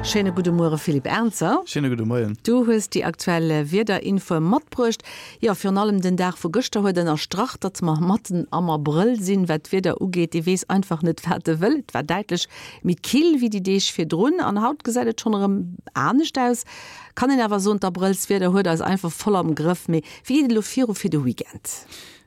Schéine gudde Muere Philippe Ernzer. Schéine gudde Moien. Du hues déi aktuell Wiederinfoe matbruecht. Jo, virun allem den Dag vu gëschter huet ënnerstrach, datt mer matten am Abrëll sinn, wat d'Wieder ugeet. Ee weess einfach net, wat e wëll. Et war däitlech méi kill wéi déi Deeg virdrun an haut gesäit et schonn erëm anescht aus. Kann een awer soen, d'Abrëllswieder huet eis einfach voll am Grëff. Mee wéi geet et elo viru fir de Weekend?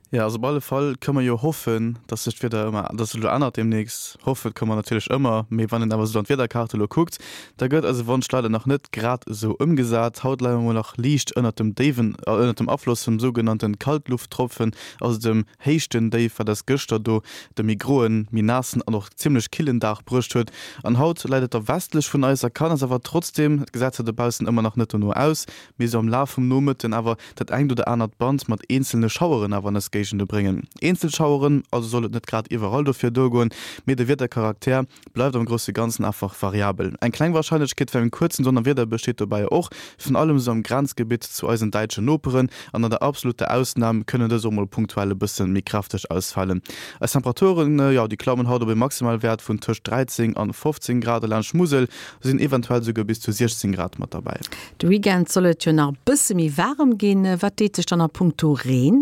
Jo, also op alle Fall kënne mer jo hoffen, dass sech d'Wieder ëmmer, dass sech elo ännert deemnächst. Hoffe kënne mer natierlech ëmmer, mee wann een awer esou an d'Wiederkaart elo kuckt, da gëtt eise Wonsch leider nach net grad esou ëmgesat. Haut leie mer mol nach liicht ënnert dem déiwen, ënnert dem Afloss vum sougenannte Kaltlufttropfen, also dem Héichtendéif, wat eis gëschter do de méi groen, méi naassen an och zimmlech killen Dag bruecht huet. An haut läit et da westlech vun eis a kann eis awer trotzdeem, et gesäit zwar dobaussen ëmmer nach net dono aus, mee sou am Laf vum Nomëtten awer dat engt oder anert Band mat eenzelne Schaueren awer an eis Géigende bréngen. Eenzel Schaueren, also soll et net grad iwwerall dofir duergoen, mee de Wiedercharakter bleift am grousse Ganzen einfach variabel. Eng kleng Warscheinlechkeet fir en kuerzen Donnerwieder besteet dobäi och, virun allem sou am Grenzgebitt zu eisen däitsche Noperen, an an der absoluter Ausnam kënnen dës och mol punktuell e bësse méi kräfteg ausfalen. Eis Temperaturen, jo déi klammen haut op e Maximalwäert vun tëscht 13 an 15 Grad a laanscht Musel sinn eventuell souguer bis zu 16 Grad mat derbäi. De Weekend soll et jo nach e bësse méi waarem ginn. Wat deet sech dann a punkto Reen?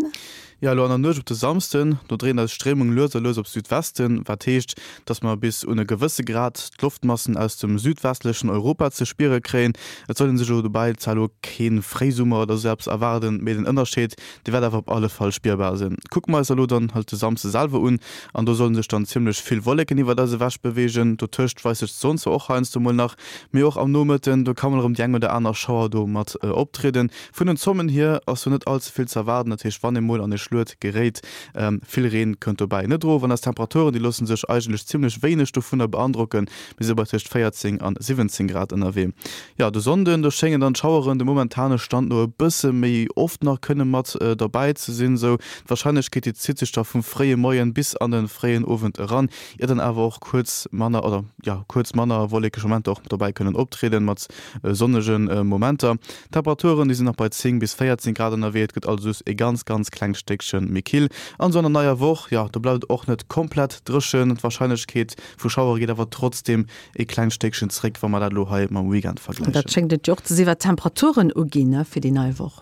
Jo, elo an der Nuecht op de Samsden, do dréint eis Stréimung lues a lues op Südwesten, wat heescht, dass mer bis un e gewësse Grad d'Loftmassen aus dem südwestlechen Europa ze spiere kréien. Et soll ee sech elo dobäi zwar elo kee Fréisummer oder sou eppes erwaarden, mee den Ënnerscheed, dee wäert awer op alle Fall spierbar sinn. Kucke mer eis elo dann halt de Samsde selwer un, an do solle sech dann zimmlech vill Wolleken iwwert eis ewech beweegen. Dotëscht weist sech d'Sonn zwar och heiansdo mol nach, Mee och am Nomëtten, do ka mol erëm déi eng oder aner Schauer do mat optrieden. Vun den Zommen hier ass do net all ze vill ze erwaarden, dat heescht wann ee mol an e Schluet geréit, vill Reen kënnt dobäi net erof. An eis Temperaturen, déi loosse sech eigentlech zimmlech wéineg dovunner beandrocken, mir si bei tëscht 14 an 17 Grad ënnerwee. Jo, de Sonnden, do schéngen dann d'Schaueren dem momentane Stand no e bësse méi oft nach kënne mat derbäi ze sinn. Sou d'Warscheinlechkeet, déi zitt sech da vum fréie Moien bis an de fréien Owend eran, ier dann awer och kuerz manner oder jo kuerz manner wollekeg Momenter och dobäi kënnen optrieden, mat sonnege Momenter. D'Temperaturen, déi sinn nach bei 10 bis 14 Grad ënnerwee, et gëtt also just e ganz ganz klengt Stéckche méi kill. An esou an der neier Woch, jo do bleift et och net komplett dréchen, d'Warscheinlechkeet vu Schauere geet awer trotzdeem e klengt Stéckchen zréck, wa mer dat elo hei mam Weekend vergläichen. Dat schéngt et jo och ze sinn, wat d'Temperaturen uginn fir déi nei Woch.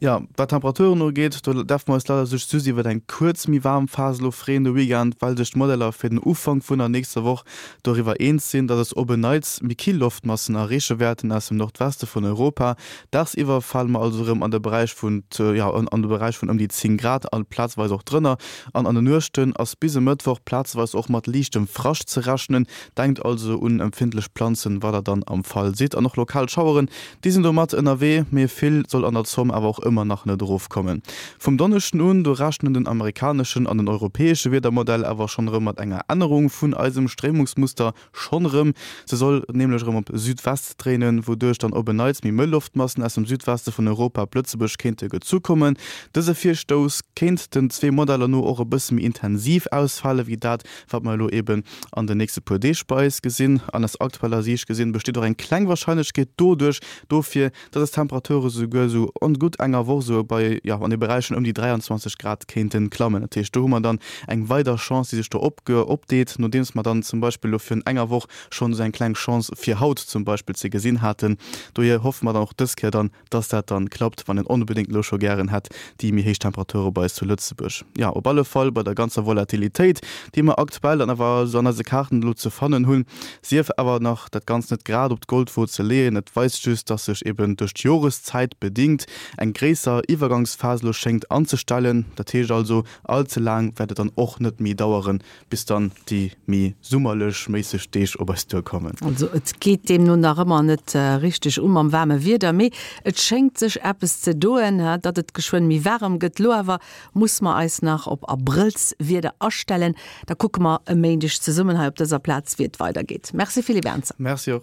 Jo, wat d'Temperaturen ugeet, do däerfe mer eis leider sech just iwwert eng kuerz méi waarm Phas elo freeën de Weekend, well sech d'Modeller fir den Ufank vun der nächster Woch doriwwer eens sinn, dass eis op en Neits méi kill Loftmassen erreeche wäerten aus dem Nordweste vun Europa. Dagsiwwer fale mer also erëm an de Beräich vun, jo, an de Beräich vun ëm déi 10 Grad a plazeweis och drënner. An an de Nuechten ass bis e Mëttwoch plazeweis och mat liichtem Frascht ze rechnen. Denkt also un empfindlech Planzen, wa der dann am Fall sidd. An och lokal Schaueren Déi sinn do mat ënnerwee, mee vill soll an der Zomm awer och ëmmer nach net erofkommen. Vum Donneschden un, do rechnen den amerikaneschen an den europäesche Wiedermodell awer schonn erëm mat enger Ännerung vun eisem Stréimungsmuster. Schonn erëm, se soll nämlech erëm op Südwest dréinen, wouduerch dann op en Neits méi mëll Loftmassen aus dem Südweste vun Europa op Lëtzebuerg kéinte gezu kommen. Dëse Virstouss kéint den zwee Modeller no och e bësse méi intensiv ausfale wéi dat, wat mer elo eben an den nächste puer Deeg bei eis gesinn. An aus aktueller Siicht gesinn besteet och eng kleng Warscheinlechkeet doduerch dofir, dass eis Temperature souguer esou an gutt enger Woch esou bei, jo, an de Beräichen ëm déi 23 Grad kéinte klammen. Dat heescht, do hu mer dann eng weider Chance, déi sech do opdeet, nodeems mer dann zum Beispill elo virun enger Woch schonn esou eng kleng Chance fir haut zum Beispill ze gesinn haten. Dohier hoffe mer dann och dës Kéier dann, dass dat dann klappt, wann een onbedéngt elo scho gären hätt déi méi héich Temperature bei eis zu Lëtzebuerg. Jo, op alle Fall bei der ganzer Volatilitéit, déi mer aktuell dann awer esou an eise Kaarten elo ze fannen hunn, sief awer nach dat Ganzt net grad op d'Goldwo ze leeën. Et weist just, dass sech eben duerch d'Joreszäit bedingt eng gréisser Iwwergangsphas elo schéngt anzestellen. Dat heescht also, all ze laang wäert et dann och net méi daueren, bis dann déi méi summerlech méisseg Deeg op eis duerkommen. Also et geet deemno nach ëmmer net richteg u mam waarme Wieder, mee et schéngt sech eppes ze doen, datt et geschwënn méi waarem gëtt. Lo awer muss mer eis nach op Abrëllswieder astellen. Da kucke mer e Méindeg zesummen hei op dëser Plaz, wéi et weidergeet. Merci Philippe Ernzer. Merci och.